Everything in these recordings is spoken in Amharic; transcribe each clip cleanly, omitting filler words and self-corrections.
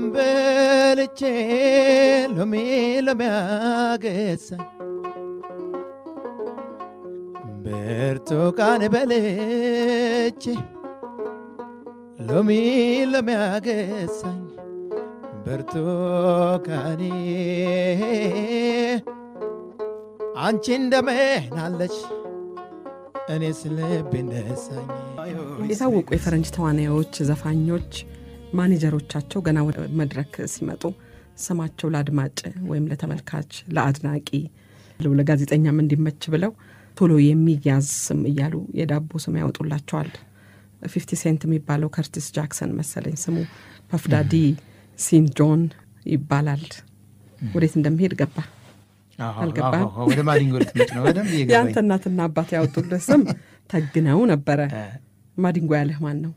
በልቼ ሎሚ ያገሳኝ ብርቱካን በልቼ ሎሚ ያገሳኝ ብርቱካኔ አንቺ እንደምን አለች እኔስ ልቤ ነሳኝ። የታወቁ የፈረንጅ ተዋናዮች፣ ዘፋኞች ማኔጀሮቻቸው ገና ወደ መድረክ ሲመጡ ስማቸው ለአድማጭ ወይም ለተመልካች ለአድናቂ ለጋዜጠኛም እንዲመች ብለው ቶሎ የሚያዝ ስም እያሉ የዳቦ ስም ያወጡላቸዋል። 50 ሴንት የሚባለው ከርቲስ ጃክሰን መሰለኝ ስሙ፣ ፐፍዳዲ ሲን ጆን ይባላል። ወዴት እንደሚሄድ ገባ አልገባም? ወደ ማዲንጎ ልትመጭ ነው? ወደም ይገባኝ። ያንተ እናትና አባት ያወጡልህ ስም ተግነው ነበረ። ማዲንጎ ያለህ ማን ነው?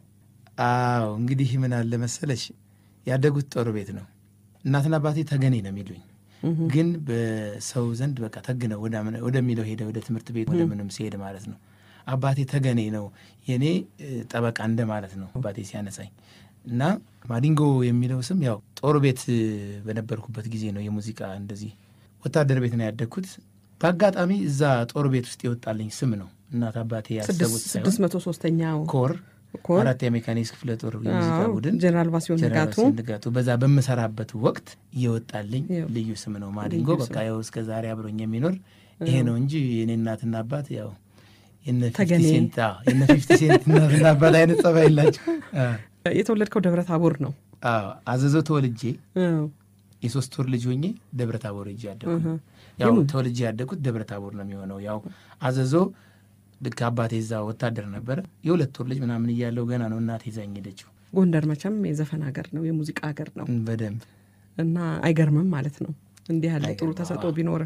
አዎ እንግዲህ ምን አለ መሰለሽ ያደጉት ጦር ቤት ነው። እናትና አባቴ ተገኔ ነው የሚሉኝ፣ ግን በሰው ዘንድ በቃ ተግነው ወደሚለው ሄደ፣ ወደ ትምህርት ቤት ወደ ምንም ሲሄድ ማለት ነው። አባቴ ተገኔ ነው የኔ ጠበቃ እንደ ማለት ነው አባቴ ሲያነሳኝ። እና ማዲንጎ የሚለው ስም ያው ጦር ቤት በነበርኩበት ጊዜ ነው። የሙዚቃ እንደዚህ ወታደር ቤት ነው ያደግኩት። በአጋጣሚ እዛ ጦር ቤት ውስጥ የወጣልኝ ስም ነው። እናት አባቴ ያሰቡት ሳይሆን 603ኛው ኮር አራት የሜካኒክስ ክፍለ ጦር የሙዚቃ ቡድን ጀነራል ባሲዮን ንጋቱ በዛ በመሰራበት ወቅት የወጣልኝ ልዩ ስም ነው ማዲንጎ። በቃ ያው እስከ ዛሬ አብሮኝ የሚኖር ይሄ ነው እንጂ የኔ እናትና አባት ያው የነ 50 ሴንት እናትና አባት አይነት ጸባይ የላቸው። የተወለድከው ደብረ ታቦር ነው? አዎ አዘዞ ተወልጄ የሶስት ወር ልጅ ሆኜ ደብረ ታቦር ሄጄ ያደኩት። ያው ተወልጄ ያደኩት ደብረ ታቦር ነው የሚሆነው። ያው አዘዞ ልክ አባቴ እዛ ወታደር ነበረ። የሁለት ወር ልጅ ምናምን እያለው ገና ነው እናቴ ይዛኝ ሄደችው። ጎንደር መቼም የዘፈን ሀገር ነው፣ የሙዚቃ ሀገር ነው በደንብ እና አይገርምም ማለት ነው እንዲህ ያለ ጥሩ ተሰጥኦ ቢኖር።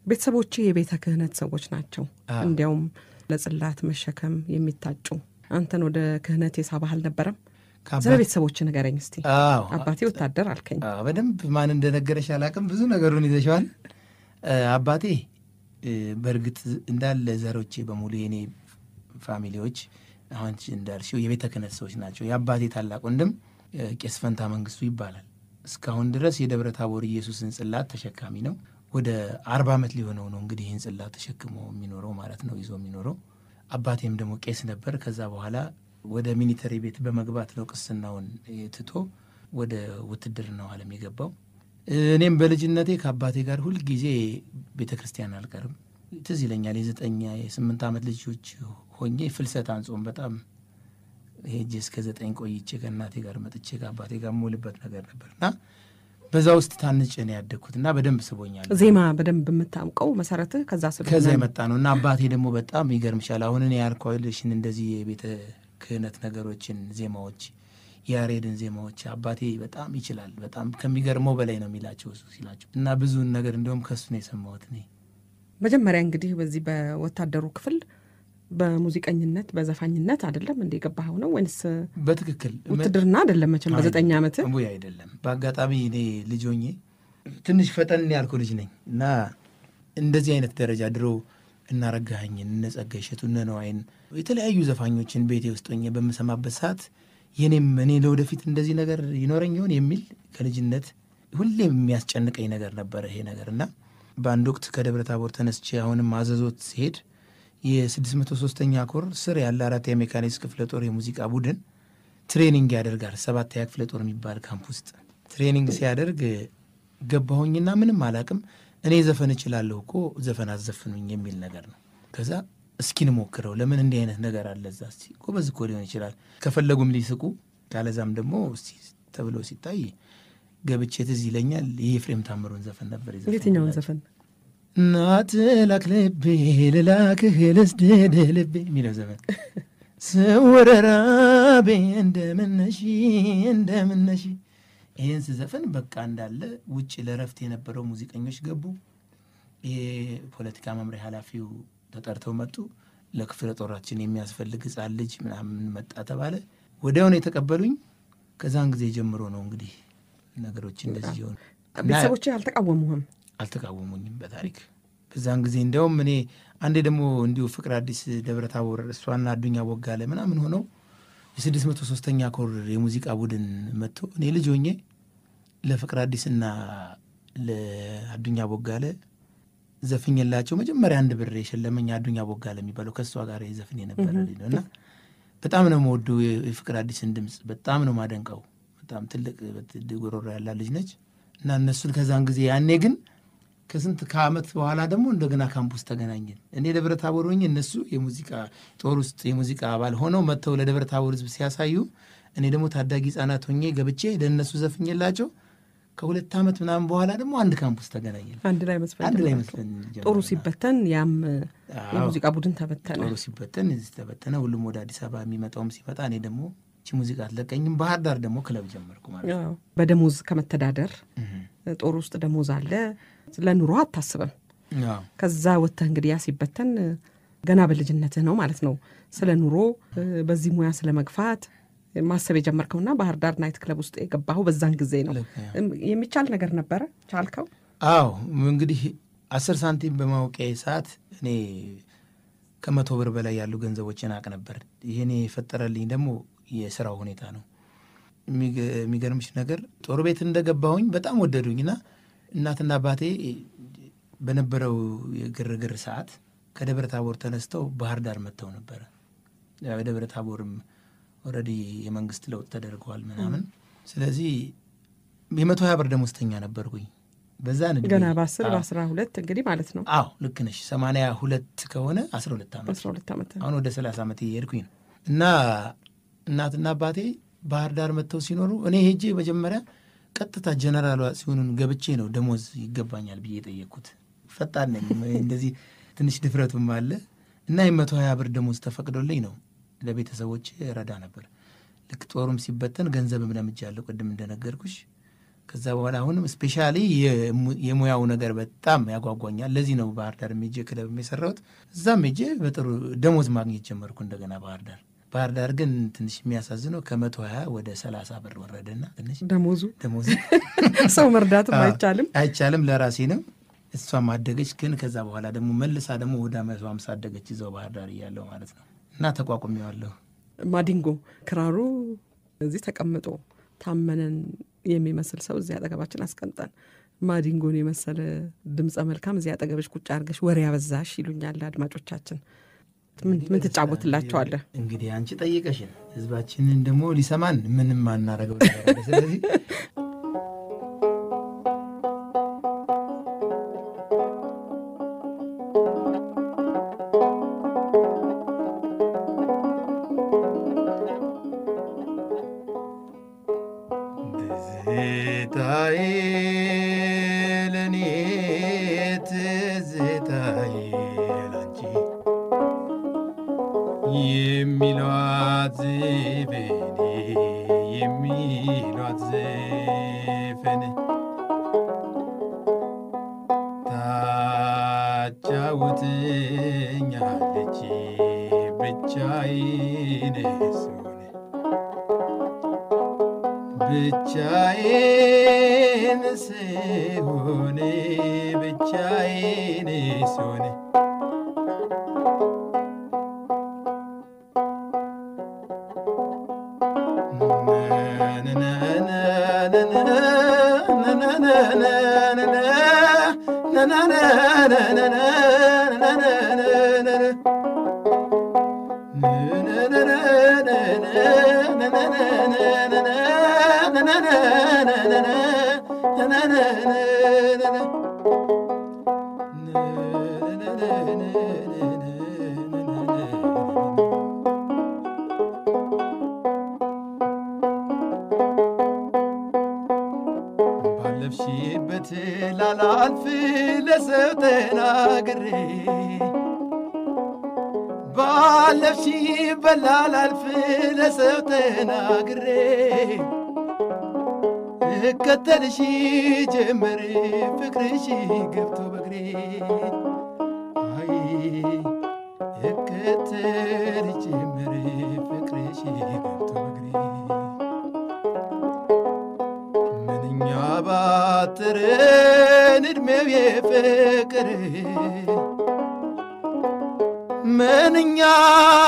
ቤተሰቦቼ የቤተ ክህነት ሰዎች ናቸው። እንዲያውም ለጽላት መሸከም የሚታጩ። አንተን ወደ ክህነት የሳበህ አልነበረም? ስለ ቤተሰቦች ንገረኝ እስቲ። አባቴ ወታደር አልከኝ። በደንብ ማን እንደነገረሽ አላውቅም፣ ብዙ ነገሩን ይዘሽዋል። አባቴ በእርግጥ እንዳለ ዘሮቼ በሙሉ የኔ ፋሚሊዎች አሁን እንዳልሽው የቤተ ክህነት ሰዎች ናቸው። የአባቴ ታላቅ ወንድም ቄስ ፈንታ መንግስቱ ይባላል። እስካሁን ድረስ የደብረ ታቦር ኢየሱስን ጽላት ተሸካሚ ነው። ወደ 40 ዓመት ሊሆነው ነው እንግዲህ ይህን ጽላት ተሸክሞ የሚኖረው ማለት ነው፣ ይዞ የሚኖረው። አባቴም ደግሞ ቄስ ነበር። ከዛ በኋላ ወደ ሚሊተሪ ቤት በመግባት ነው ቅስናውን ትቶ ወደ ውትድርናው ዓለም የገባው። እኔም በልጅነቴ ከአባቴ ጋር ሁል ጊዜ ቤተ ክርስቲያን አልቀርም። ትዝ ይለኛል የ8 ዓመት ልጆች ሆኜ ፍልሰት አንጾም በጣም ሄጄ እስከ 9 ቆይቼ ከእናቴ ጋር መጥቼ ከአባቴ ጋር የምውልበት ነገር ነበርና በዛ ውስጥ ታንጬ ነው ያደግኩትና በደንብ ስቦኛል። ዜማ በደንብ የምታውቀው መሰረትህ ከዛ የመጣ ነው እና አባቴ ደግሞ በጣም ይገርምሻል። አሁን እኔ ያልኳልሽን እንደዚህ የቤተ ክህነት ነገሮችን ዜማዎች፣ ያሬድን ዜማዎች አባቴ በጣም ይችላል። በጣም ከሚገርመው በላይ ነው የሚላቸው እሱ ሲላቸው እና ብዙን ነገር እንደውም ከሱ ነው የሰማሁት እኔ። መጀመሪያ እንግዲህ በዚህ በወታደሩ ክፍል በሙዚቀኝነት በዘፋኝነት አይደለም እንደ ገባኸው ነው ወይስ? በትክክል ውትድርና አይደለም መቼም በ9 ዓመት ወይ አይደለም። በአጋጣሚ እኔ ልጅ ሆኜ ትንሽ ፈጠን ያልኩ ልጅ ነኝ እና እንደዚህ አይነት ደረጃ ድሮ እናረጋኸኝን እነጸጋይ እሸቱ እነ ነዋይን የተለያዩ ዘፋኞችን ቤቴ ውስጥ ሆኜ በምሰማበት ሰዓት እኔ ለወደፊት እንደዚህ ነገር ይኖረኝ ይሆን የሚል ከልጅነት ሁሌም የሚያስጨንቀኝ ነገር ነበረ ይሄ ነገር እና በአንድ ወቅት ከደብረ ታቦር ተነስቼ አሁንም አዘዞት ሲሄድ የ603ኛ ኮር ስር ያለ 4 የሜካኒክስ ክፍለ ጦር የሙዚቃ ቡድን ትሬኒንግ ያደርጋል። 7ኛ ክፍለ ጦር የሚባል ካምፕ ውስጥ ትሬኒንግ ሲያደርግ ገባሁኝና ምንም አላቅም። እኔ ዘፈን እችላለሁ እኮ ዘፈን አዘፍኑኝ የሚል ነገር ነው። ከዛ እስኪን ሞክረው ለምን እንዲህ አይነት ነገር አለ እዛ እስቲ ጎበዝ እኮ ሊሆን ይችላል ከፈለጉም ሊስቁ ካለዛም ደግሞ እስቲ ተብሎ ሲታይ ገብቼ ትዝ ይለኛል የኤፍሬም ታምሩን ዘፈን ነበር ይዘፈን። የትኛውን ዘፈን? ናት ላክልቤ ልላክህ ልስድድ ልቤ የሚለው ዘፈን ስወረራቤ እንደምነሺ ይህን ስዘፈን በቃ እንዳለ ውጭ ለረፍት የነበረው ሙዚቀኞች ገቡ። የፖለቲካ መምሪያ ኃላፊው ተጠርተው መጡ። ለክፍለ ጦራችን የሚያስፈልግ ሕፃን ልጅ ምናምን መጣ ተባለ። ወዲያውኑ የተቀበሉኝ። ከዛን ጊዜ ጀምሮ ነው እንግዲህ ነገሮች እንደዚህ ሆኑ። ቤተሰቦቼ አልተቃወሙኝም በታሪክ በዛን ጊዜ። እንዲያውም እኔ አንዴ ደግሞ እንዲሁ ፍቅር አዲስ ደብረ ታቦር እሷና አዱኛ ወጋለ ምናምን ሆነው የ603ኛ ኮር የሙዚቃ ቡድን መጥቶ እኔ ልጅ ሆኜ ለፍቅር አዲስና ለአዱኛ ቦጋለ ዘፍኝላቸው መጀመሪያ 1 ብር የሸለመኝ አዱኛ ቦጋለ የሚባለው ከሷ ጋር የዘፍን የነበረ ልጅ ነው። እና በጣም ነው የምወደው የፍቅር አዲስን ድምፅ በጣም ነው ማደንቀው። በጣም ትልቅ ጉሮሮ ያላት ልጅ ነች። እና እነሱን ከዛን ጊዜ ያኔ ግን ከዓመት በኋላ ደግሞ እንደገና ካምፑስ ተገናኘን። እኔ ደብረ ታቦር ሆኜ እነሱ የሙዚቃ ጦር ውስጥ የሙዚቃ አባል ሆነው መጥተው ለደብረ ታቦር ህዝብ ሲያሳዩ እኔ ደግሞ ታዳጊ ህጻናት ሆኜ ገብቼ ለእነሱ ዘፍኝላቸው ከ2 ዓመት ምናምን በኋላ ደግሞ አንድ ካምፑስ ተገናኘን። አንድ ላይ መስፈን ጦሩ ሲበተን ያም የሙዚቃ ቡድን ተበተነ። ጦሩ ሲበተን እዚህ ተበተነ። ሁሉም ወደ አዲስ አበባ የሚመጣውም ሲመጣ እኔ ደግሞ እቺ ሙዚቃ አትለቀኝም። ባህር ዳር ደግሞ ክለብ ጀመርኩ ማለት ነው። በደሞዝ ከመተዳደር ጦር ውስጥ ደሞዝ አለ፣ ለኑሮ አታስብም። ከዛ ወጥተህ እንግዲህ ያ ሲበተን ገና በልጅነትህ ነው ማለት ነው ስለ ኑሮ በዚህ ሙያ ስለ መግፋት ማሰብ የጀመርከውና ባህር ዳር ናይት ክለብ ውስጥ የገባኸው በዛን ጊዜ ነው። የሚቻል ነገር ነበረ? ቻልከው? አዎ እንግዲህ 10 ሳንቲም በማውቂያ ሰዓት እኔ ከ100 ብር በላይ ያሉ ገንዘቦችን አቅ ነበር። ይሄኔ የፈጠረልኝ ደግሞ የስራው ሁኔታ ነው። የሚገርምሽ ነገር ጦር ቤት እንደገባሁኝ በጣም ወደዱኝና እናትና አባቴ በነበረው የግርግር ሰዓት ከደብረ ታቦር ተነስተው ባህር ዳር መጥተው ነበረ። ደብረ ታቦርም ኦልሬዲ የመንግስት ለውጥ ተደርገዋል ምናምን። ስለዚህ የ120 ብር ደሞዝተኛ ነበርኩኝ በዛ ነው ገና በ12 እንግዲህ ማለት ነው። አዎ ልክ ነሽ። 82 ከሆነ 12 ዓመት አሁን ወደ 30 ዓመት እየሄድኩኝ ነው። እና እናትና አባቴ ባህር ዳር መጥተው ሲኖሩ እኔ ሄጄ መጀመሪያ ቀጥታ ጀነራል ሲሆኑን ገብቼ ነው ደሞዝ ይገባኛል ብዬ የጠየቅኩት። ፈጣን ነኝ እንደዚህ ትንሽ ድፍረቱም አለ። እና የ120 ብር ደሞዝ ተፈቅዶልኝ ነው ለቤተሰቦች ረዳ ነበር። ልክ ጦሩም ሲበተን ገንዘብም ለምጃለሁ ቅድም እንደነገርኩሽ። ከዛ በኋላ አሁንም ስፔሻሊ የሙያው ነገር በጣም ያጓጓኛል። ለዚህ ነው ባህር ዳር ሜጄ ክለብ የሰራሁት። እዛም ሜጄ በጥሩ ደሞዝ ማግኘት ጀመርኩ እንደገና ባህር ዳር ግን ትንሽ የሚያሳዝነው ከ120 ወደ 30 ብር ወረደና ትንሽ ደሞዙ ሰው መርዳትም አይቻልም ለራሴ ነው። እሷም አደገች። ግን ከዛ በኋላ ደግሞ መልሳ ደግሞ ወደ 150 አደገች እዛው ባህር ዳር እያለሁ ማለት ነው። እና ተቋቁሜዋለሁ። ማዲንጎ ክራሩ እዚህ ተቀምጦ ታመነን የሚመስል ሰው እዚህ አጠገባችን አስቀምጠን ማዲንጎን የመሰለ ድምፀ መልካም እዚህ አጠገብሽ ቁጭ አድርገሽ ወሬ ያበዛሽ ይሉኛል አድማጮቻችን። ምን ትጫወትላቸዋለህ? እንግዲህ አንቺ ጠይቀሽን ህዝባችንን ደግሞ ሊሰማን ምንም አናረገው ነገር። ስለዚህ ትዝታዬ ለኔ ትዝታዬ ላንቺ የሚሏት ዘፈን ታጫውትኛለች ብቻዬን ስሆን ባለፍሽበት ላላልፍ ለሰው ተናግሬ ባለፍሽበት ላላልፍ ለሰው ተናግሬ እከተልሽ ጀመር ፍቅርሽ ገብቶ በግሬ አይ እከተልሽ ጀመር ፍቅርሽ ገብቶ በግሬ ምንኛ ባጠረን ዕድሜው የፍቅር ምንኛ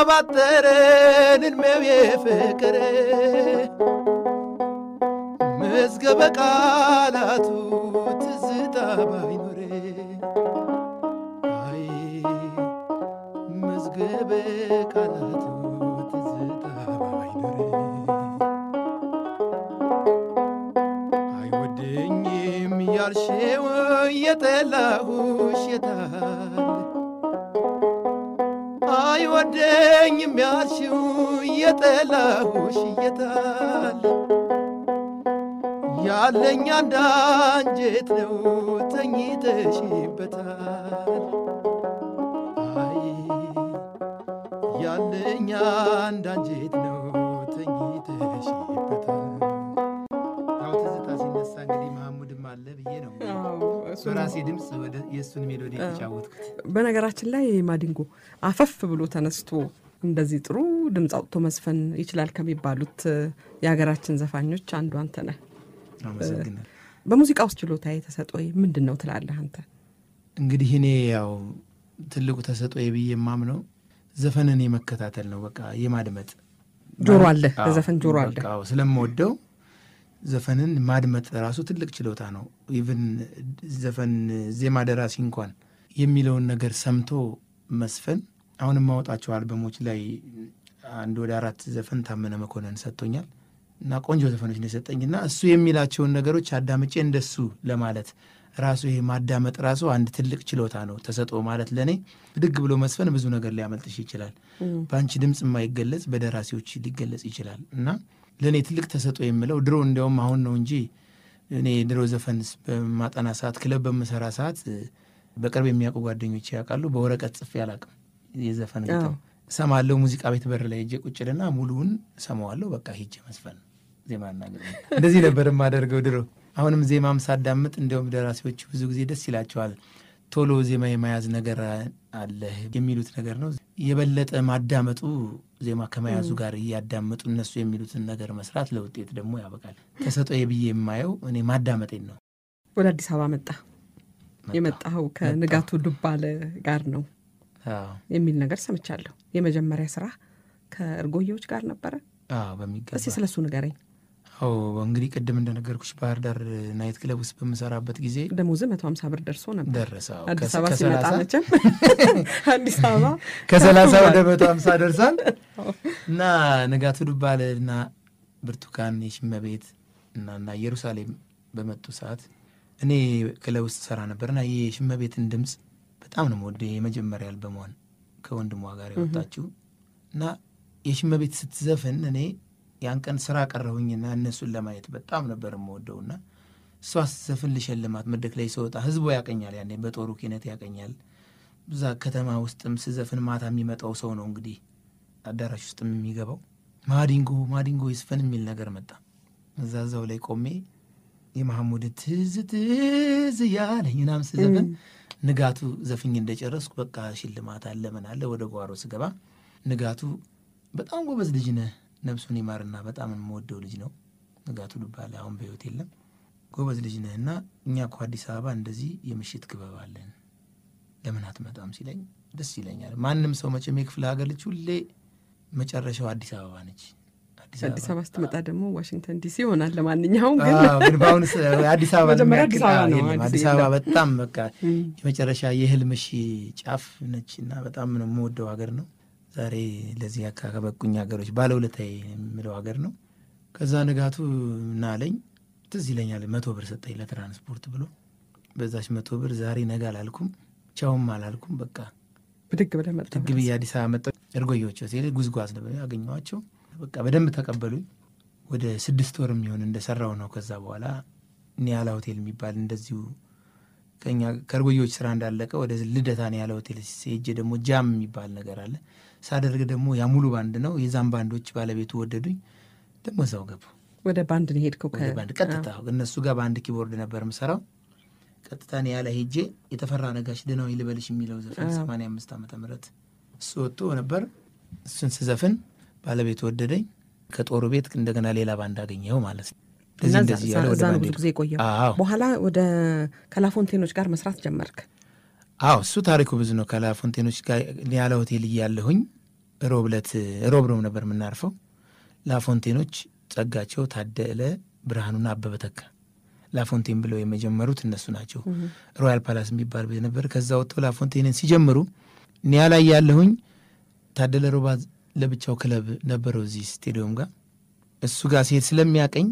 ባጠረን እድሜው የፍቅር መዝገበ ቃላቱ ትዝታ ባይኖር አይ መዝገበ ቃላቱ ትዝታ ባይኖር አይወደኝም ያልሽው የጠላሁሽ የታል አይወደኝም ያልሽው የጠላሁሽ የታል ያለኝ አንድ አንጀት ነው ተኝተሽበታል አይ ያለኝ አንድ አንጀት ነው ተኝተሽበታል። ያው ትዝታ ሲነሳ እንግዲህ መሐሙድም አለ ብዬ ነው በራሴ ድምፅ ወደ የእሱን ሜሎዲ የተጫወትኩት። በነገራችን ላይ ማዲንጎ አፈፍ ብሎ ተነስቶ እንደዚህ ጥሩ ድምፅ አውጥቶ መስፈን ይችላል ከሚባሉት የሀገራችን ዘፋኞች አንዱ አንተ ነህ። አመሰግናለሁ። በሙዚቃ ውስጥ ችሎታዬ ተሰጥኦዬ ምንድን ነው ትላለህ አንተ? እንግዲህ እኔ ያው ትልቁ ተሰጥኦዬ ብዬ የማምነው ዘፈንን የመከታተል ነው። በቃ የማድመጥ ጆሮ አለ፣ ለዘፈን ጆሮ አለ። በቃ ስለምወደው ዘፈንን ማድመጥ ራሱ ትልቅ ችሎታ ነው። ኢቭን ዘፈን ዜማ ደራሲ እንኳን የሚለውን ነገር ሰምቶ መስፈን። አሁንም ማወጣቸው አልበሞች ላይ አንድ ወደ 4 ዘፈን ታመነ መኮንን ሰጥቶኛል እና ቆንጆ ዘፈኖች ነው የሰጠኝና እሱ የሚላቸውን ነገሮች አዳምጬ እንደሱ ለማለት ራሱ ይሄ ማዳመጥ ራሱ አንድ ትልቅ ችሎታ ነው። ተሰጥኦ ማለት ለኔ ድግ ብሎ መስፈን ብዙ ነገር ሊያመልጥሽ ይችላል። በአንቺ ድምጽ የማይገለጽ በደራሲዎች ሊገለጽ ይችላል እና ለኔ ትልቅ ተሰጥኦ የምለው ድሮ እንደውም አሁን ነው እንጂ እኔ ድሮ ዘፈን በማጠና ሰዓት ክለብ በመሰራ ሰዓት በቅርብ የሚያውቁ ጓደኞች ያውቃሉ። በወረቀት ጽፌ አላውቅም። የዘፈን ግጥም ሰማለሁ ሙዚቃ ቤት በር ላይ ሄጄ ቁጭልና ሙሉውን ሰማዋለሁ። በቃ ሄጄ መስፈን ዜማና ግጥም እንደዚህ ነበር የማደርገው ድሮ። አሁንም ዜማም ሳዳምጥ እንደውም ደራሲዎች ብዙ ጊዜ ደስ ይላቸዋል። ቶሎ ዜማ የመያዝ ነገር አለ የሚሉት ነገር ነው። የበለጠ ማዳመጡ ዜማ ከመያዙ ጋር እያዳመጡ እነሱ የሚሉትን ነገር መስራት ለውጤት ደግሞ ያበቃል። ተሰጥኦዬ ብዬ የማየው እኔ ማዳመጤን ነው። ወደ አዲስ አበባ የመጣኸው ከንጋቱ ዱባለ ጋር ነው የሚል ነገር ሰምቻለሁ። የመጀመሪያ ስራ ከእርጎዬዎች ጋር ነበረ? በሚገባ። እስኪ ስለሱ ንገረኝ። እንግዲህ ቅድም እንደነገርኩሽ ባህር ዳር ናይት ክለብ ውስጥ በምሰራበት ጊዜ ደሞዝ 150 ብር ደርሶ ነበር። ደረሰው። አዲስ አበባ ሲመጣ መቼም አዲስ አበባ ከ30 ወደ 150 ደርሳል እና ንጋቱ ዱባለና ብርቱካን የሽመቤት እና ኢየሩሳሌም በመጡ ሰዓት እኔ ክለብ ውስጥ ሰራ ነበርና የሽመቤትን ድምጽ በጣም ነው የምወደው። የመጀመሪያ አልበሟን ከወንድሟ ጋር ያወጣችው እና የሽመቤት ስትዘፍን እኔ ያን ቀን ስራ ቀረሁኝና እነሱን ለማየት በጣም ነበር የምወደውና እሷ ስትዘፍን ልሸልማት መድረክ ላይ ስወጣ ህዝቡ ያቀኛል። ያኔ በጦሩ ኪነት ያቀኛል። እዛ ከተማ ውስጥም ስዘፍን ማታ የሚመጣው ሰው ነው እንግዲህ አዳራሽ ውስጥም የሚገባው። ማዲንጎ ይስፈን የሚል ነገር መጣ። እዛው ላይ ቆሜ የመሐሙድ ትዝ ያለኝ ምናምን ስዘፍን ንጋቱ ዘፍኝ እንደጨረስኩ በቃ ሽልማት አለ ምን አለ ወደ ጓሮ ስገባ ንጋቱ በጣም ጎበዝ ልጅ ነህ፣ ነፍሱን ይማርና በጣም የምወደው ልጅ ነው ንጋቱ ዱባለ፣ አሁን በህይወት የለም። ጎበዝ ልጅ ነህና እኛ እኮ አዲስ አበባ እንደዚህ የምሽት ክበብ አለን ለምን አትመጣም ሲለኝ ደስ ይለኛል። ማንም ሰው መቼም የክፍለ ሀገር ልጅ ሁሌ መጨረሻው አዲስ አበባ ነች። አዲስ አበባ ስትመጣ ደግሞ ዋሽንግተን ዲሲ ይሆናል። ለማንኛውም ግን በአሁኑ አዲስ አበባ አዲስ አበባ በጣም በቃ የመጨረሻ የህልምሽ ጫፍ ነችና በጣም ነው የምወደው ሀገር ነው። ዛሬ ለዚህ ከበቁኝ ሀገሮች ባለውለታዬ የምለው ሀገር ነው። ከዛ ንጋቱ ናለኝ ትዝ ይለኛል 100 ብር ሰጠኝ ለትራንስፖርት ብሎ። በዛች 100 ብር ዛሬ ነገ አላልኩም ቻውም አላልኩም። በቃ ብድግ ብለህ መጣ። ብድግ ብዬ አዲስ አበባ መጣሁ። እርጎዬዎች ሲል ጉዝጓዝ ነበር ያገኘኋቸው። በቃ በደንብ ተቀበሉኝ። ወደ 6 ወር የሚሆን እንደሰራው ነው። ከዛ በኋላ ኒያላ ሆቴል የሚባል እንደዚሁ ከኛ ከእርጎዬዎች ስራ እንዳለቀ ወደ ልደታ ኒያላ ሆቴል ሲሄጄ ደግሞ ጃም የሚባል ነገር አለ ሳደርግ ደግሞ ያ ሙሉ ባንድ ነው። የዛም ባንዶች ባለቤቱ ወደዱኝ። ደግሞ እዛው ገቡ። ወደ ባንድ ነው ሄድከው? ወደ ባንድ ቀጥታ እነሱ ጋር ባንድ ኪቦርድ ነበር የምሰራው። ቀጥታ ኒያላ ሄጄ የተፈራ ነጋሽ ደህናው ይልበልሽ የሚለው ዘፈን 85 ዓመተ ምህረት እሱ ወጥቶ ነበር። እሱን ስዘፍን ባለቤቱ ወደደኝ። ከጦሩ ቤት እንደገና ሌላ ባንድ አገኘው ማለት ነው። እንደዚህ ያለ ወደ ባንድ ብዙ ጊዜ ቆየው። በኋላ ወደ ከላፎንቴኖች ጋር መስራት ጀመርክ? አዎ እሱ ታሪኩ ብዙ ነው። ከላፎንቴኖች ጋር ኒያላ ሆቴል እያለሁኝ ሮብ ነበር የምናርፈው። ላፎንቴኖች ጸጋቸው፣ ታደለ ብርሃኑና አበበ ተካ ላፎንቴን ብለው የመጀመሩት እነሱ ናቸው። ሮያል ፓላስ የሚባል ቤት ነበር። ከዛ ወጥተው ላፎንቴንን ሲጀምሩ ኒያላ እያለሁኝ ታደለ ሮባ ለብቻው ክለብ ነበረው እዚህ ስቴዲዮም ጋር። እሱ ጋር ሲሄድ ስለሚያቀኝ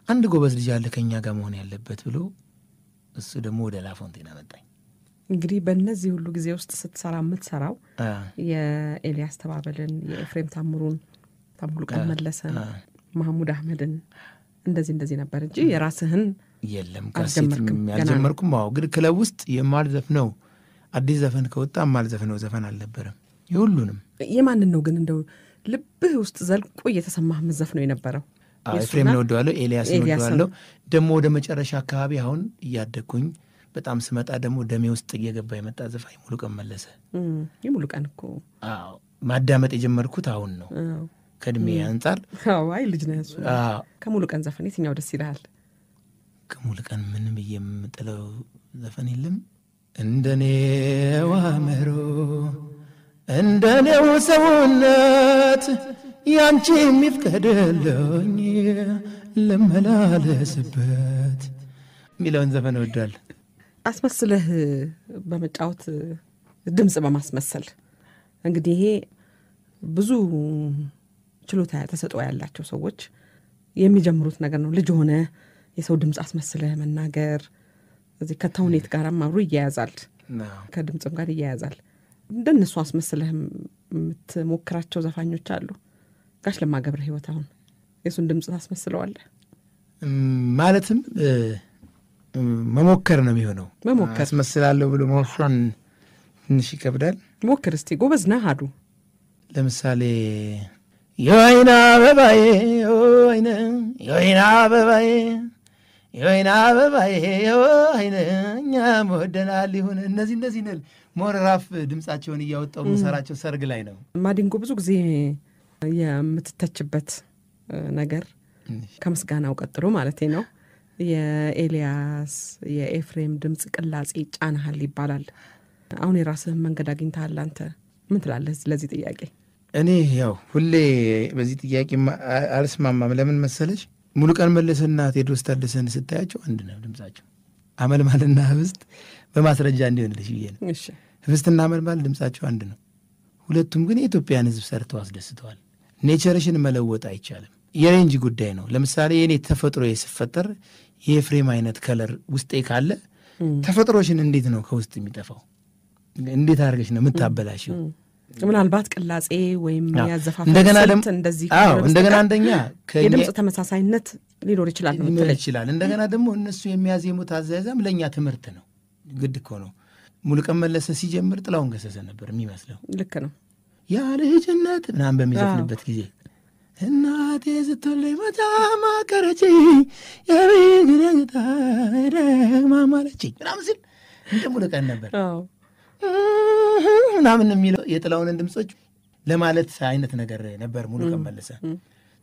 አንድ ጎበዝ ልጅ አለ ከኛ ጋር መሆን ያለበት ብሎ እሱ ደግሞ ወደ ላፎንቴን አመጣኝ። እንግዲህ በእነዚህ ሁሉ ጊዜ ውስጥ ስትሰራ የምትሰራው የኤልያስ ተባበልን፣ የኤፍሬም ታምሩን፣ ሙሉቀን መለሰን፣ ማህሙድ አህመድን እንደዚህ ነበር እንጂ የራስህን የለም። ካሴት ያልጀመርኩም። አዎ ግን ክለብ ውስጥ የማልዘፍነው አዲስ ዘፈን ከወጣ የማልዘፍነው ዘፈን አልነበረም። የሁሉንም የማንን ነው ግን እንደው ልብህ ውስጥ ዘልቆ እየተሰማህ መዘፍነው የነበረው? ኤፍሬም ነው ወደዋለሁ፣ ኤልያስ ነው ወደዋለሁ። ደግሞ ወደ መጨረሻ አካባቢ አሁን እያደግኩኝ በጣም ስመጣ ደግሞ ደሜ ውስጥ እየገባ የመጣ ዘፋኝ ሙሉቀን መለሰ። የሙሉቀን እኮ ማዳመጥ የጀመርኩት አሁን ነው ከእድሜ አንጻር። አይ ልጅ ነህ እሱ። ከሙሉቀን ዘፈን የትኛው ደስ ይልሃል? ከሙሉቀን ምንም የምጥለው ዘፈን የለም። እንደኔው አእምሮ እንደኔው ሰውነት ያንቺ የሚፍቀደለኝ ልመላለስበት የሚለውን ዘፈን እወዳለሁ። አስመስለህ በመጫወት ድምፅ በማስመሰል እንግዲህ ይሄ ብዙ ችሎታ ተሰጥኦ ያላቸው ሰዎች የሚጀምሩት ነገር ነው። ልጅ ሆነ የሰው ድምፅ አስመስለህ መናገር እዚህ ከተውኔት ጋርም አብሮ ይያያዛል፣ ከድምፅም ጋር ይያያዛል። እንደነሱ አስመስለህ የምትሞክራቸው ዘፋኞች አሉ? ጋሽ ለማ ገብረ ሕይወት አሁን የሱን ድምፅ ታስመስለዋለህ? ማለትም መሞከር ነው የሚሆነው። መሞከር አስመስላለሁ ብሎ መወሰን ትንሽ ይከብዳል። ሞክር እስቲ፣ ጎበዝ ነህ አሉ። ለምሳሌ የወይና አበባዬ የወይና አበባዬ የወይና አበባዬ የወይና እኛም ወደናል ይሁን። እነዚህ ነል ሞራፍ ድምፃቸውን እያወጣው የምሰራቸው ሰርግ ላይ ነው። ማዲንጎ ብዙ ጊዜ የምትተችበት ነገር ከምስጋናው ቀጥሎ ማለት ነው የኤልያስ የኤፍሬም ድምፅ ቅላጼ ጫናሃል ይባላል። አሁን የራስህን መንገድ አግኝተሃል አንተ። ምን ትላለህ ለዚህ ጥያቄ? እኔ ያው ሁሌ በዚህ ጥያቄ አልስማማም። ለምን መሰለች? ሙሉቀን መለሰና ቴዎድሮስ ታደሰን ስታያቸው አንድ ነው ድምፃቸው። አመልማልና ህብስት በማስረጃ እንዲሆንልሽ ብዬ ነው። ህብስትና አመልማል ድምፃቸው አንድ ነው። ሁለቱም ግን የኢትዮጵያን ህዝብ ሰርተው አስደስተዋል። ኔቸርሽን መለወጥ አይቻልም። የሬንጅ ጉዳይ ነው። ለምሳሌ የኔ ተፈጥሮ ስፈጠር የኤፍሬም አይነት ከለር ውስጤ ካለ ተፈጥሮሽን እንዴት ነው ከውስጥ የሚጠፋው? እንዴት አድርገሽ ነው የምታበላሽው? ምናልባት ቅላጼ ወይም ያዘፋፈን እንደዚህ እንደገና አንደኛ የድምፅ ተመሳሳይነት ሊኖር ይችላል። እንደገና ደግሞ እነሱ የሚያዜሙት አዘያዘም ለእኛ ትምህርት ነው። ግድ እኮ ነው። ሙሉቀን መለሰ ሲጀምር ጥላሁን ገሰሰ ነበር የሚመስለው። ልክ ነው። ያ ልጅነት ምናምን በሚዘፍንበት ጊዜ እናቴ ስትለኝ በጣም አቀረችኝ የቤግነታ ማማለችኝ ምናምን ሲል እንደ ሙሉቀን ነበር ምናምን የሚለው የጥላሁንን ድምፆች ለማለት አይነት ነገር ነበር ሙሉቀን መለሰ።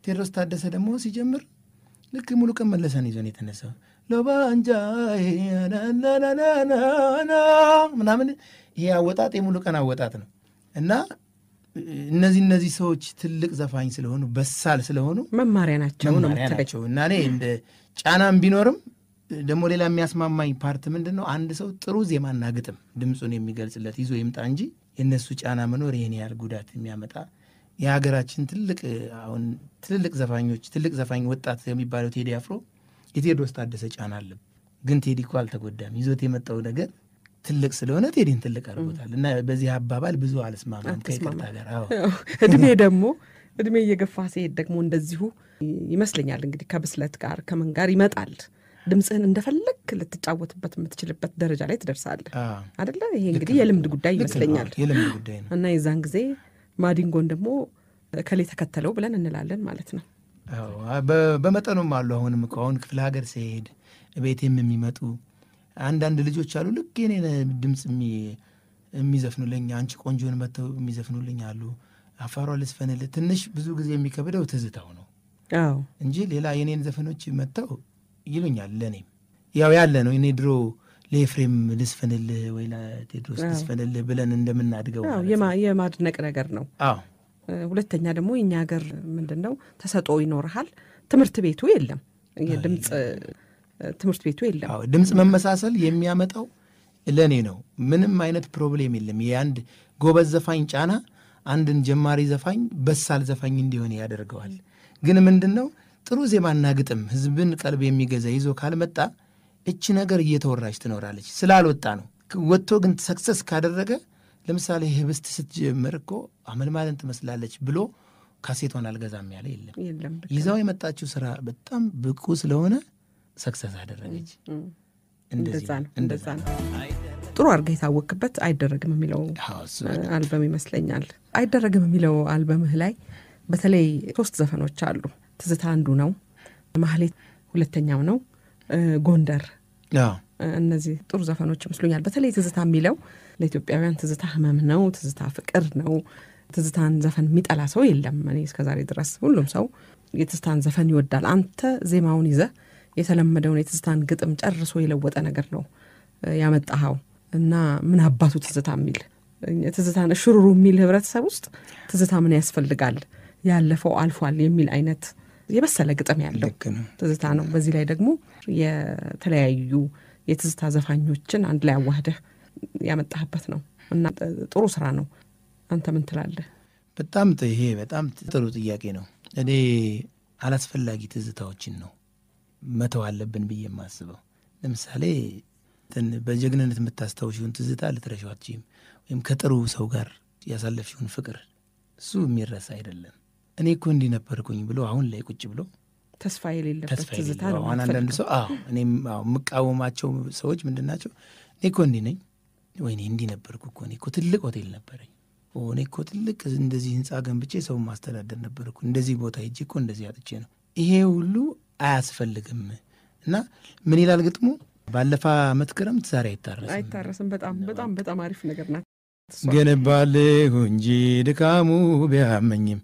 ቴዎድሮስ ታደሰ ደግሞ ሲጀምር ልክ ሙሉቀን መለሰን ይዞን የተነሳው ሎባንጃ ምናምን ይሄ አወጣጥ የሙሉቀን አወጣጥ ነው። እና እነዚህ ሰዎች ትልቅ ዘፋኝ ስለሆኑ በሳል ስለሆኑ መማሪያ ናቸው እና እኔ እንደ ጫናም ቢኖርም ደግሞ ሌላ የሚያስማማኝ ፓርት ምንድን ነው? አንድ ሰው ጥሩ ዜማና ግጥም ድምፁን የሚገልጽለት ይዞ ይምጣ እንጂ የእነሱ ጫና መኖር ይህን ያህል ጉዳት የሚያመጣ የሀገራችን አሁን ትልልቅ ዘፋኞች ትልቅ ዘፋኝ ወጣት የሚባለው ቴዲ አፍሮ የቴዎድሮስ ታደሰ ጫና አለ። ግን ቴዲ እኮ አልተጎዳም። ይዞት የመጣው ነገር ትልቅ ስለሆነ ቴዲን ትልቅ አድርጎታል። እና በዚህ አባባል ብዙ አልስማማም ከይቅርታ ጋር። እድሜ እየገፋ ሲሄድ ደግሞ እንደዚሁ ይመስለኛል እንግዲህ ከብስለት ጋር ከምን ጋር ይመጣል። ድምፅህን እንደፈለግ ልትጫወትበት የምትችልበት ደረጃ ላይ ትደርሳለህ አይደለ? ይሄ እንግዲህ የልምድ ጉዳይ ይመስለኛል። የልምድ ጉዳይ ነው። እና የዛን ጊዜ ማዲንጎን ደግሞ ከሌ ተከተለው ብለን እንላለን ማለት ነው። በመጠኑም አሉ። አሁንም እኮ አሁን ክፍለ ሀገር ሲሄድ ቤቴም የሚመጡ አንዳንድ ልጆች አሉ ልክ የኔን ድምፅ የሚዘፍኑልኝ አንቺ ቆንጆን መጥተው የሚዘፍኑልኝ አሉ። አፋሯ ልስፈንልህ ትንሽ ብዙ ጊዜ የሚከብደው ትዝታው ነው እንጂ ሌላ የኔን ዘፈኖች መጥተው ይሉኛል። ለእኔም ያው ያለ ነው። እኔ ድሮ ለኤፍሬም ልስፈንልህ ወይ ለቴድሮስ ልስፈንልህ ብለን እንደምናድገው የማድነቅ ነገር ነው። ሁለተኛ ደግሞ የኛ ሀገር ምንድነው ተሰጥኦ ይኖርሃል፣ ትምህርት ቤቱ የለም፣ የድምጽ ትምህርት ቤቱ የለም። ድምጽ መመሳሰል የሚያመጣው ለኔ ነው። ምንም አይነት ፕሮብሌም የለም። የአንድ ጎበዝ ዘፋኝ ጫና አንድን ጀማሪ ዘፋኝ በሳል ዘፋኝ እንዲሆን ያደርገዋል። ግን ምንድነው ጥሩ ዜማና ግጥም ህዝብን ቀልብ የሚገዛ ይዞ ካልመጣ እቺ ነገር እየተወራች ትኖራለች። ስላልወጣ ነው። ወጥቶ ግን ሰክሰስ ካደረገ ለምሳሌ ህብስት ስትጀምር እኮ አመልማልን ትመስላለች ብሎ ካሴቷን አልገዛም ያለ የለም። ይዛው የመጣችው ስራ በጣም ብቁ ስለሆነ ሰክሰስ አደረገች። እንደዛ ነው። ጥሩ አድርገህ የታወቅበት አይደረግም የሚለው አልበም ይመስለኛል። አይደረግም የሚለው አልበምህ ላይ በተለይ 3 ዘፈኖች አሉ። ትዝታ አንዱ ነው፣ ማህሌት ሁለተኛው ነው፣ ጎንደር። እነዚህ ጥሩ ዘፈኖች ይመስሉኛል። በተለይ ትዝታ የሚለው ለኢትዮጵያውያን ትዝታ ህመም ነው፣ ትዝታ ፍቅር ነው። ትዝታን ዘፈን የሚጠላ ሰው የለም። እኔ እስከዛሬ ድረስ ሁሉም ሰው የትዝታን ዘፈን ይወዳል። አንተ ዜማውን ይዘህ የተለመደውን የትዝታን ግጥም ጨርሶ የለወጠ ነገር ነው ያመጣኸው እና ምን አባቱ ትዝታ የሚል ትዝታን ሽሩሩ የሚል ህብረተሰብ ውስጥ ትዝታ ምን ያስፈልጋል፣ ያለፈው አልፏል የሚል አይነት የበሰለ ግጥም ያለው ትዝታ ነው። በዚህ ላይ ደግሞ የተለያዩ የትዝታ ዘፋኞችን አንድ ላይ አዋህደህ ያመጣህበት ነው እና ጥሩ ስራ ነው። አንተ ምን ትላለህ? ይሄ በጣም ጥሩ ጥያቄ ነው። እኔ አላስፈላጊ ትዝታዎችን ነው መተው አለብን ብዬ የማስበው። ለምሳሌ በጀግንነት የምታስታውሽውን ትዝታ ልትረሺው አትችይም። ወይም ከጥሩ ሰው ጋር ያሳለፍሽውን ፍቅር እሱ የሚረሳ አይደለም። እኔ እኮ እንዲህ ነበርኩኝ ብሎ አሁን ላይ ቁጭ ብሎ ተስፋ የሌለበት ትዝታ ነው። አንዳንድ ሰው እኔም የምቃወማቸው ሰዎች ምንድን ናቸው? እኔ እኮ እንዲህ ነኝ፣ ወይኔ እንዲህ ነበርኩ እኮ፣ እኔ እኮ ትልቅ ሆቴል ነበረኝ፣ እኔ እኮ ትልቅ እንደዚህ ህንፃ ገንብቼ ሰው ማስተዳደር ነበርኩ፣ እንደዚህ ቦታ ሄጄ እኮ እንደዚህ አጥቼ ነው። ይሄ ሁሉ አያስፈልግም። እና ምን ይላል ግጥሙ? ባለፈ ዓመት ክረምት ዛሬ አይታረስም። በጣም አሪፍ ነገር ናት። ገነባለሁ እንጂ ድካሙ ቢያመኝም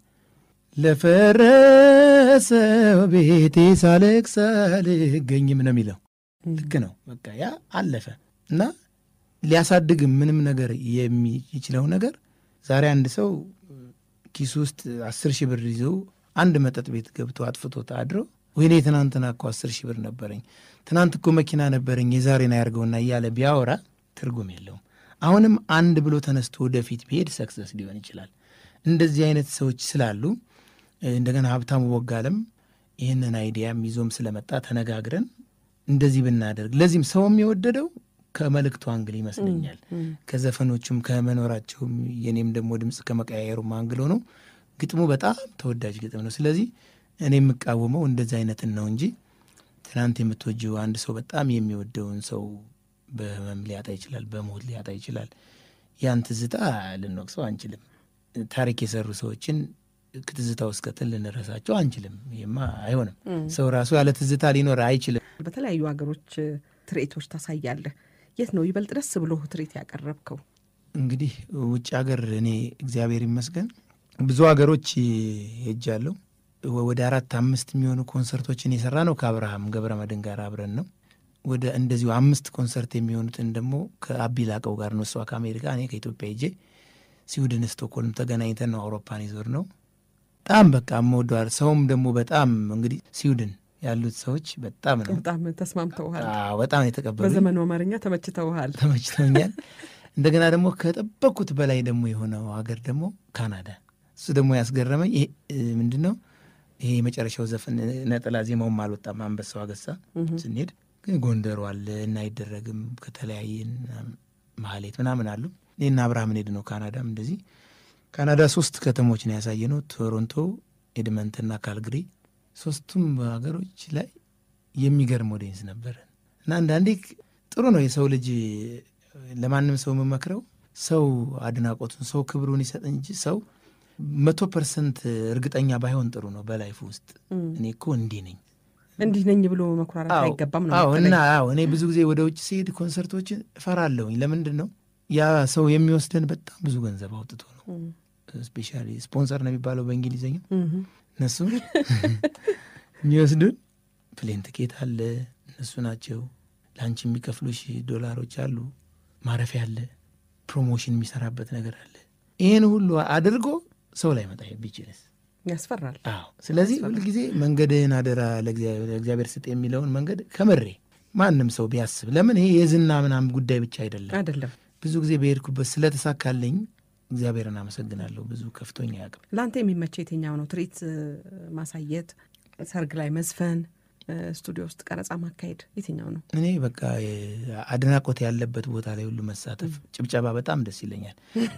ለፈረሰው ቤቴ ሳለቅስ አልገኝም ነው የሚለው። ልክ ነው። በቃ ያ አለፈ እና ሊያሳድግም ምንም ነገር የሚችለው ነገር ዛሬ አንድ ሰው ኪሱ ውስጥ 10,000 ብር ይዞ አንድ መጠጥ ቤት ገብቶ አጥፍቶ ታድሮ ወይኔ ትናንትና እኮ 10,000 ብር ነበረኝ፣ ትናንት እኮ መኪና ነበረኝ፣ የዛሬን አያርገውና እያለ ቢያወራ ትርጉም የለውም። አሁንም አንድ ብሎ ተነስቶ ወደፊት ቢሄድ ሰክሰስ ሊሆን ይችላል። እንደዚህ አይነት ሰዎች ስላሉ እንደገና ሀብታሙ ቦጋለም ይህንን አይዲያም ይዞም ስለመጣ ተነጋግረን እንደዚህ ብናደርግ፣ ለዚህም ሰው የሚወደደው ከመልእክቱ አንግል ይመስለኛል። ከዘፈኖቹም ከመኖራቸውም የኔም ደግሞ ድምፅ ከመቀያየሩም አንግል ሆኖ ግጥሙ በጣም ተወዳጅ ግጥም ነው። ስለዚህ እኔ የምቃወመው እንደዚህ አይነትን ነው እንጂ ትናንት የምትወጂው አንድ ሰው በጣም የሚወደውን ሰው በህመም ሊያጣ ይችላል፣ በሞት ሊያጣ ይችላል። ያን ትዝታ ልንወቅሰው አንችልም። ታሪክ የሰሩ ሰዎችን ትዝታ ውስጥ ከተን ልንረሳቸው አንችልም። ይሄማ አይሆንም። ሰው ራሱ ያለ ትዝታ ሊኖር አይችልም። በተለያዩ ሀገሮች ትርኢቶች ታሳያለህ። የት ነው ይበልጥ ደስ ብሎ ትርኢት ያቀረብከው? እንግዲህ ውጭ ሀገር እኔ እግዚአብሔር ይመስገን ብዙ ሀገሮች ሄጃለሁ። ወደ 4-5 የሚሆኑ ኮንሰርቶችን የሰራ ነው ከአብርሃም ገብረመድህን ጋር አብረን ነው። ወደ እንደዚሁ 5 ኮንሰርት የሚሆኑትን ደግሞ ከአቢ ላቀው ጋር ነው። እሷ ከአሜሪካ እኔ ከኢትዮጵያ ሄጄ ስዊድን ስቶክሆልም ተገናኝተን ነው አውሮፓን ይዞር ነው። በጣም በቃ የምወደዋል። ሰውም ደግሞ በጣም እንግዲህ ስዊድን ያሉት ሰዎች በጣም ተስማምተውሃል። በጣም የተቀበሉ በዘመኑ አማርኛ ተመችተውኛል። እንደገና ደግሞ ከጠበቅኩት በላይ ደግሞ የሆነው ሀገር ደግሞ ካናዳ። እሱ ደግሞ ያስገረመኝ ምንድን ነው ይሄ የመጨረሻው ዘፈን ነጠላ ዜማውም አልወጣም። አንበሳው አገሳ ስንሄድ ግን ጎንደሩ አለ እና አይደረግም ከተለያየን ማህሌት ምናምን አሉ። እኔና አብርሃም ሄድ ነው ካናዳም እንደዚህ ካናዳ 3 ከተሞች ነው ያሳየ ነው። ቶሮንቶ፣ ኤድመንትና ካልግሪ። 3ቱም ሀገሮች ላይ የሚገርም ኦዲየንስ ነበር እና አንዳንዴ ጥሩ ነው የሰው ልጅ ለማንም ሰው የምመክረው ሰው አድናቆቱን ሰው ክብሩን ይሰጥ እንጂ ሰው 100% እርግጠኛ ባይሆን ጥሩ ነው በላይፍ ውስጥ። እኔ እኮ እንዲህ ነኝ ብሎ መኩራራት አይገባም ነው። እኔ ብዙ ጊዜ ወደ ውጭ ሲሄድ ኮንሰርቶችን እፈራለሁኝ። ለምንድን ነው ያ ሰው የሚወስደን በጣም ብዙ ገንዘብ አውጥቶ ነው። ስፔሻሊ ስፖንሰር ነው የሚባለው በእንግሊዝኛ። እነሱ የሚወስዱን ፕሌን ትኬት አለ፣ እነሱ ናቸው ለአንቺ የሚከፍሉሽ $ዶላሮች አሉ፣ ማረፊያ አለ፣ ፕሮሞሽን የሚሰራበት ነገር አለ። ይህን ሁሉ አድርጎ ሰው ላይ መጣ ቢችልስ ያስፈራል። አዎ። ስለዚህ ሁልጊዜ መንገድህን አደራ ለእግዚአብሔር ስጥ የሚለውን መንገድ ከምሬ ማንም ሰው ቢያስብ፣ ለምን ይሄ የዝና ምናምን ጉዳይ ብቻ አይደለም። ብዙ ጊዜ በሄድኩበት ስለተሳካልኝ እግዚአብሔርን አመሰግናለሁ። ብዙ ከፍቶኝ አያውቅም። ለአንተ የሚመቸው የትኛው ነው? ትርኢት ማሳየት፣ ሰርግ ላይ መዝፈን፣ ስቱዲዮ ውስጥ ቀረጻ ማካሄድ የትኛው ነው? እኔ በቃ አድናቆት ያለበት ቦታ ላይ ሁሉ መሳተፍ፣ ጭብጨባ በጣም ደስ ይለኛል።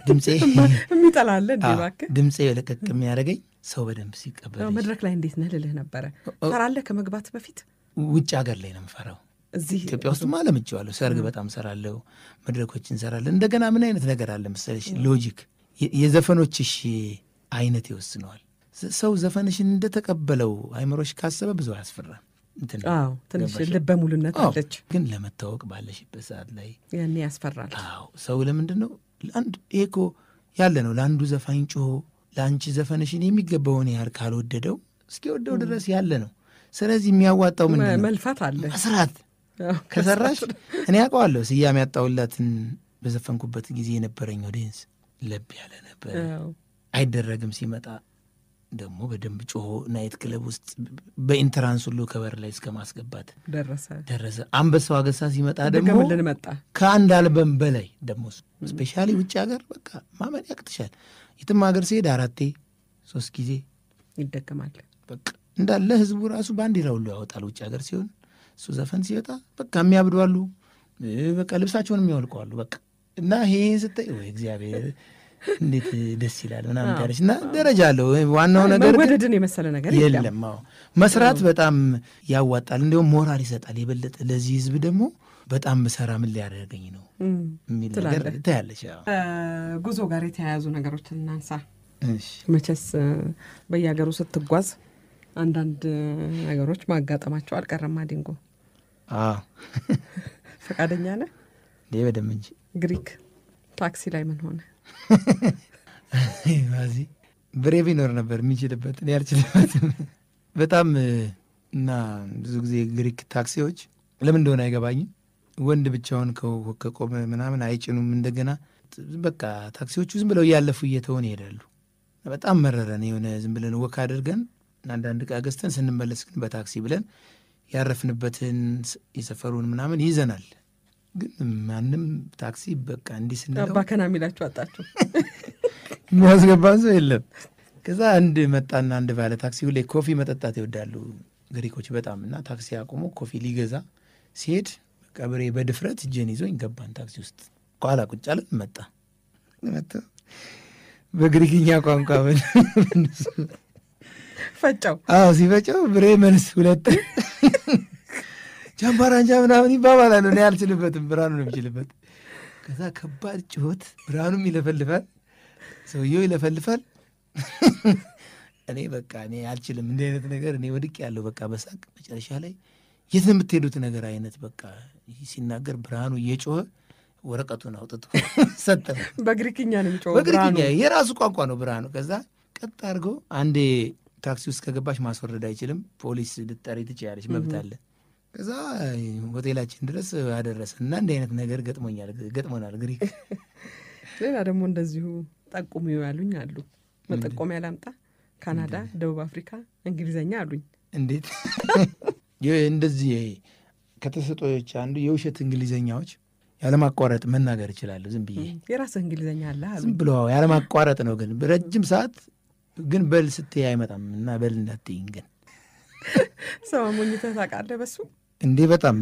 ድምፄ የሚጠላለ እባክህ ድምፄ ለቀቅ የሚያደርገኝ ሰው በደንብ ሲቀበል። መድረክ ላይ እንዴት ነህ ልልህ ነበረ። ፈራለህ ከመግባት በፊት? ውጭ ሀገር ላይ ነው የምፈራው። እዚህ ኢትዮጵያ ውስጥ ለምጄዋለሁ። ሰርግ በጣም ሰራለሁ፣ መድረኮች እንሰራለን። እንደገና ምን አይነት ነገር አለ መሰለሽ፣ ሎጂክ የዘፈኖችሽ አይነት ይወስነዋል። ሰው ዘፈንሽን እንደተቀበለው አይምሮሽ ካሰበ ብዙ አያስፈራም። ትንሽ ልበ ሙሉነት አለች። ግን ለመታወቅ ባለሽበት ሰዓት ላይ ያኔ ያስፈራል። ሰው ለምንድን ነው ይሄ እኮ ያለ ነው። ለአንዱ ዘፋኝ ጮሆ ለአንቺ ዘፈንሽን የሚገባውን ያህል ካልወደደው እስኪወደው ድረስ ያለ ነው። ስለዚህ የሚያዋጣው ምንድን ነው? መልፋት አለ፣ መስራት። ከሰራሽ እኔ ያውቀዋለሁ። ስያሜ ያጣውላትን በዘፈንኩበት ጊዜ የነበረኝ ኦዲየንስ ለብ ያለ ነበር። አይደረግም ሲመጣ ደግሞ በደንብ ጮሆ ናይት ክለብ ውስጥ በኢንትራንስ ሁሉ ከበር ላይ እስከ ማስገባት ደረሰ። አንበሳው አገሳ ሲመጣ ደግሞ ከአንድ አልበም በላይ ደግሞ ስፔሻሊ ውጭ ሀገር በቃ ማመን ያቅትሻል። የትም ሀገር ሲሄድ 4-3 ጊዜ ይደገማል። በቃ እንዳለ ህዝቡ ራሱ ባንዲራ ሁሉ ያወጣል። ውጭ ሀገር ሲሆን እሱ ዘፈን ሲወጣ በቃ የሚያብዷሉ፣ በቃ ልብሳቸውን የሚያወልቀዋሉ። በቃ እና ይሄን ስታይ ወይ እግዚአብሔር እንዴት ደስ ይላል ምናምን ታለች። እና ደረጃ አለው። ዋናው ነገር መወደድን የመሰለ ነገር የለም። መስራት በጣም ያዋጣል፣ እንዲሁም ሞራል ይሰጣል የበለጠ። ለዚህ ህዝብ ደግሞ በጣም ብሰራ ምን ሊያደርገኝ ነው የሚል ነገር ታያለች። ጉዞ ጋር የተያያዙ ነገሮችን እናንሳ። መቼስ በየሀገሩ ስትጓዝ አንዳንድ ነገሮች ማጋጠማቸው አልቀረም። ዲንጎ ፈቃደኛ ነህ? በደምብ እንጂ። ግሪክ ታክሲ ላይ ምን ሆነ? ዚ ብሬ ቢኖር ነበር የሚችልበት፣ እኔ አልችልበትም በጣም። እና ብዙ ጊዜ ግሪክ ታክሲዎች ለምን እንደሆነ አይገባኝም። ወንድ ብቻውን ከቆመ ምናምን አይጭኑም። እንደገና በቃ ታክሲዎቹ ዝም ብለው እያለፉ እየተሆን ይሄዳሉ። በጣም መረረን። የሆነ ዝም ብለን ወክ አድርገን አንዳንድ ዕቃ ገዝተን ስንመለስ ግን በታክሲ ብለን ያረፍንበትን የሰፈሩን ምናምን ይዘናል። ግን ማንም ታክሲ በቃ እንዲህ ስንለው አባከና የሚላችሁ አጣችሁ። የሚያስገባን ሰው የለም። ከዛ አንድ መጣና አንድ ባለ ታክሲ ሁሌ ኮፊ መጠጣት ይወዳሉ ግሪኮች በጣም። እና ታክሲ አቁሞ ኮፊ ሊገዛ ሲሄድ በቃ ብሬ በድፍረት እጄን ይዞኝ ገባን ታክሲ ውስጥ። ኋላ ቁጭ አለን። መጣ በግሪክኛ ቋንቋ ፈጫው። ሲፈጫው ብሬ መልስ 2 ጃምባራንጃ ምናምን ይባባላሉ። እኔ አልችልበትም፣ ብርሃኑ ነው የሚችልበት። ከዛ ከባድ ጭሆት፣ ብርሃኑም ይለፈልፋል፣ ሰውየው ይለፈልፋል። እኔ በቃ እኔ አልችልም እንዲህ አይነት ነገር። እኔ ወድቅ ያለው በቃ በሳቅ መጨረሻ ላይ የት ነው የምትሄዱት ነገር አይነት በቃ ሲናገር ብርሃኑ እየጮኸ ወረቀቱን አውጥቶ ሰጠ። በግሪክኛ ነው የሚጮኸው። በግሪክኛ የራሱ ቋንቋ ነው ብርሃኑ። ከዛ ቀጥ አድርገው አንዴ ታክሲ ውስጥ ከገባሽ ማስወረድ አይችልም፣ ፖሊስ ልትጠሪ ትችያለሽ፣ መብት አለ። ከዛ ሆቴላችን ድረስ አደረሰ እና እንዲህ አይነት ነገር ገጥሞናል ግሪክ። ሌላ ደግሞ እንደዚሁ ጠቁሙ ያሉኝ አሉ። መጠቆሚያ ላምጣ? ካናዳ፣ ደቡብ አፍሪካ፣ እንግሊዘኛ አሉኝ። እንዴት እንደዚህ ከተሰጦች አንዱ የውሸት እንግሊዘኛዎች ያለማቋረጥ መናገር እችላለሁ። ዝም ብዬ የራስህ እንግሊዘኛ አለ ዝም ብሎ ያለማቋረጥ ነው። ግን ረጅም ሰዓት ግን በል ስትይ አይመጣም እና በል እንዳትይኝ ግን ሰው ሞኝተህ ታውቃለህ በሱ እንዴ? በጣም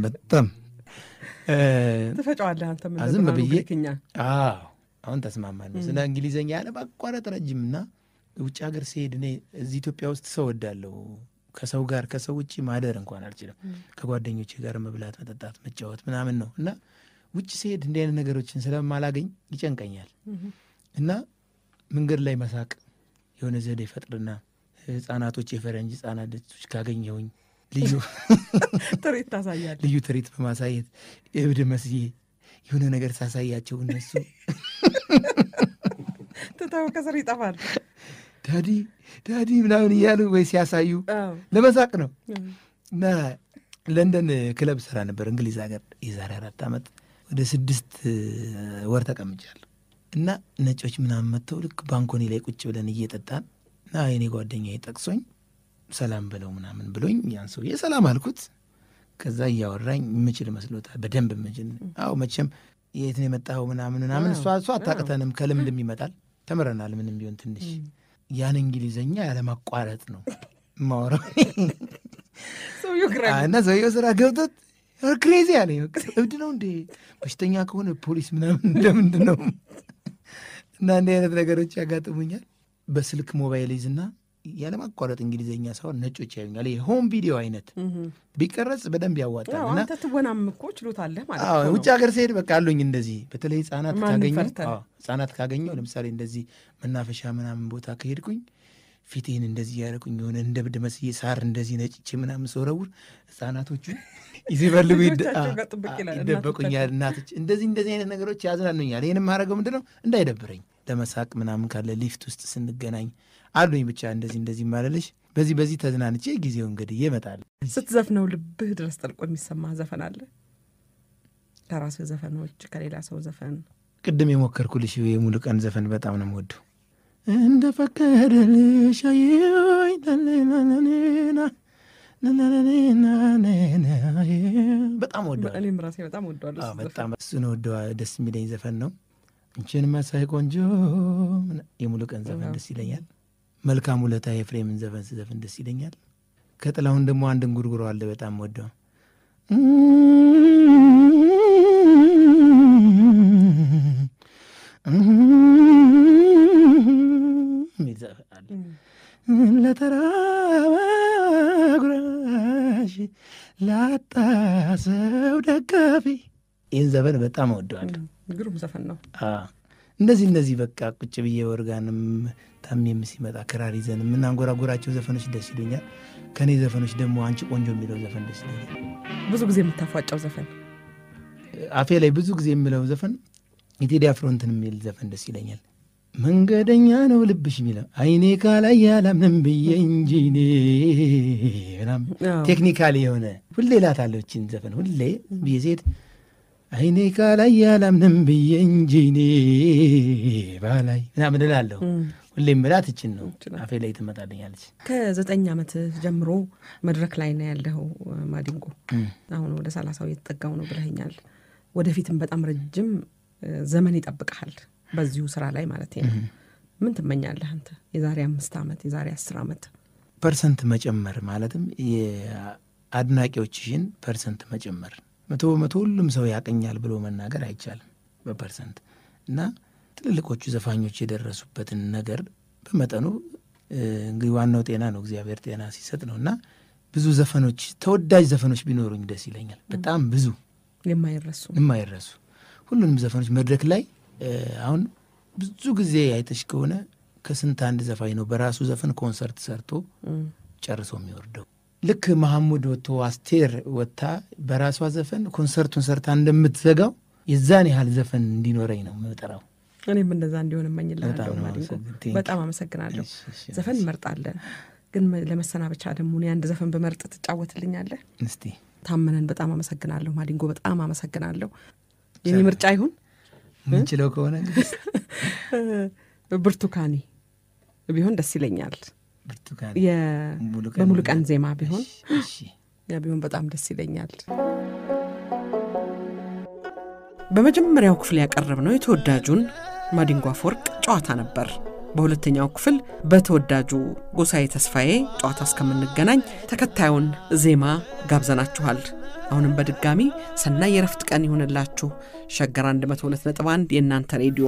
ትፈጫዋለህ አንተ። ምን ዝም ብዬ አሁን ተስማማን ነው ስለ እንግሊዘኛ ያለማቋረጥ ረጅም። እና ውጭ ሀገር ሲሄድ እኔ እዚህ ኢትዮጵያ ውስጥ ሰው ወዳለሁ። ከሰው ጋር ከሰው ውጭ ማደር እንኳን አልችልም። ከጓደኞቼ ጋር መብላት፣ መጠጣት፣ መጫወት ምናምን ነው። እና ውጭ ሲሄድ እንዲህ አይነት ነገሮችን ስለማላገኝ ይጨንቀኛል። እና መንገድ ላይ መሳቅ የሆነ ዘዴ ፈጥርና ህጻናቶች፣ የፈረንጅ ህጻናቶች ካገኘሁኝ ልዩ ትርኢት ታሳያለህ። ልዩ ትርኢት በማሳየት እብድ መስዬ የሆነ ነገር ሳሳያቸው እነሱ ትተው ከስር ይጠፋል። ዳዲ ምናምን እያሉ ወይ ሲያሳዩ ለመሳቅ ነው። እና ለንደን ክለብ ስራ ነበር እንግሊዝ ሀገር የዛሬ 4 ዓመት ወደ 6 ወር ተቀምጫለሁ እና ነጮች ምናምን መጥተው ልክ ባንኮኒ ላይ ቁጭ ብለን እየጠጣን እና የኔ ጓደኛዬ ጠቅሶኝ ሰላም ብለው ምናምን ብሎኝ ያን ሰውዬ ሰላም አልኩት። ከዛ እያወራኝ ምችል መስሎታል በደንብ ምችል። አዎ መቼም የት ነው የመጣው ምናምን እሷ አታቅተንም ከልምድም ይመጣል ተምረናል ምንም ቢሆን ትንሽ ያን እንግሊዘኛ ያለ ማቋረጥ ነው ማወራው እና ሰውዬው ስራ ገብቶት ክሬዚ አለኝ። እብድ ነው እንዴ በሽተኛ ከሆነ ፖሊስ ምናምን እንደምንድን ነው እና እንዲህ አይነት ነገሮች ያጋጥሙኛል። በስልክ ሞባይል ይዝና ያለማቋረጥ እንግሊዘኛ ሳይሆን ነጮች ያዩኛል። ይሄ ሆም ቪዲዮ አይነት ቢቀረጽ በደንብ ያዋጣል። እና አንተ ትወናም እኮ ችሎታለህ ማለት ነው። ውጭ ሀገር ስሄድ በቃ አሉኝ እንደዚህ በተለይ ህጻናት ካገኘው ለምሳሌ እንደዚህ መናፈሻ ምናምን ቦታ ከሄድኩኝ ፊቴን እንደዚህ ያደረኩኝ የሆነ እንደ ብድ መስዬ ሳር እንደዚህ ነጭቼ ምናምን ሰውረውር ህጻናቶቹ ይዘበልጉ ይደበቁኛል። እናቶች እንደዚህ አይነት ነገሮች ያዝናኑኛል። ይህን የማደርገው ምንድን ነው እንዳይደብረኝ ለመሳቅ ምናምን ካለ ሊፍት ውስጥ ስንገናኝ አሉኝ ብቻ እንደዚህ ማለልሽ በዚህ ተዝናንቼ ጊዜው እንግዲህ ይመጣል። ስትዘፍነው ልብህ ድረስ ጠልቆ የሚሰማ ዘፈን አለ? ከራስህ ዘፈኖች ከሌላ ሰው ዘፈን? ቅድም የሞከርኩልሽ የሙሉቀን ዘፈን በጣም ነው የምወደው። እንደ ፈቀደልሽ አየኝ በጣም ወደዋለሁ። እኔም ራሴ በጣም ወደዋለሁ። በጣም እሱን ደስ የሚለኝ ዘፈን ነው። እንቺን መሳይ ቆንጆ የሙሉቀን ዘፈን ደስ ይለኛል። መልካም ውለታ የፍሬምን ዘፈን ስዘፍን ደስ ይለኛል። ከጥላሁን ደግሞ አንድ እንጉርጉሮ አለ በጣም ወደው ለተራበ ጉራሽ ላጣ ሰው ደጋፊ ይህን ዘፈን በጣም ወደዋለሁ። ግሩም ዘፈን ነው። እንደዚህ በቃ ቁጭ ብዬ ወርጋንም ታሜም ሲመጣ ክራር ይዘን የምናንጎራጎራቸው ዘፈኖች ደስ ይሉኛል። ከኔ ዘፈኖች ደግሞ አንቺ ቆንጆ የሚለው ዘፈን ደስ ይለኛል። ብዙ ጊዜ የምታፏጫው ዘፈን አፌ ላይ ብዙ ጊዜ የምለው ዘፈን የቴዲ አፍሮ እንትን የሚል ዘፈን ደስ ይለኛል። መንገደኛ ነው ልብሽ የሚለው አይኔ ካላይ ያላምንም ብዬ እንጂ እኔ ምናምን ቴክኒካሊ የሆነ ሁሌ እላታለሁ እችን ዘፈን ሁሌ ብዬ ሴት አይኔ ካላይ ያላምንም ብዬ እንጂ እኔ ባላይ ምናምን እላለሁ። ሁሌም ምላት እችን ነው አፌ ላይ ትመጣልኛለች። ከ9 ዓመት ጀምሮ መድረክ ላይ ነው ያለው ማዲንጎ። አሁን ወደ 30 እየተጠጋው ነው ብለኸኛል። ወደፊትም በጣም ረጅም ዘመን ይጠብቅሃል በዚሁ ስራ ላይ ማለት ነው። ምን ትመኛለህ አንተ? የዛሬ 5 ዓመት የዛሬ 10 ዓመት ፐርሰንት መጨመር ማለትም የአድናቂዎችሽን ፐርሰንት መጨመር 100% ሁሉም ሰው ያቀኛል ብሎ መናገር አይቻልም በፐርሰንት እና ትልልቆቹ ዘፋኞች የደረሱበትን ነገር በመጠኑ እንግዲህ ዋናው ጤና ነው እግዚአብሔር ጤና ሲሰጥ ነውና ብዙ ዘፈኖች ተወዳጅ ዘፈኖች ቢኖሩኝ ደስ ይለኛል። በጣም ብዙ የማይረሱ ሁሉንም ዘፈኖች መድረክ ላይ አሁን ብዙ ጊዜ አይተሽ ከሆነ ከስንት አንድ ዘፋኝ ነው በራሱ ዘፈን ኮንሰርት ሰርቶ ጨርሶ የሚወርደው። ልክ መሐሙድ ወጥቶ አስቴር ወጥታ በራሷ ዘፈን ኮንሰርቱን ሰርታ እንደምትዘጋው የዛን ያህል ዘፈን እንዲኖረኝ ነው የምጠራው። እኔም እንደዛ እንዲሆን እመኝልሃለሁ ማዲንጎ። በጣም አመሰግናለሁ። ዘፈን እንመርጣለን ግን ለመሰናበቻ ደግሞ እኔ አንድ ዘፈን በመርጥ ትጫወትልኛለህ? እስቲ ታመነን በጣም አመሰግናለሁ ማዲንጎ። በጣም አመሰግናለሁ። የኔ ምርጫ ይሁን ምንችለው ከሆነ ብርቱካኔ ቢሆን ደስ ይለኛል። ብርቱካኔ በሙሉቀን ዜማ ቢሆን ያ ቢሆን በጣም ደስ ይለኛል። በመጀመሪያው ክፍል ያቀረብነው የተወዳጁን ማዲንጎ አፈወርቅ ጨዋታ ነበር። በሁለተኛው ክፍል በተወዳጁ ጎሳዬ ተስፋዬ ጨዋታ እስከምንገናኝ ተከታዩን ዜማ ጋብዘናችኋል። አሁንም በድጋሚ ሰናይ የረፍት ቀን ይሁንላችሁ። ሸገር 102.1 የእናንተ ሬዲዮ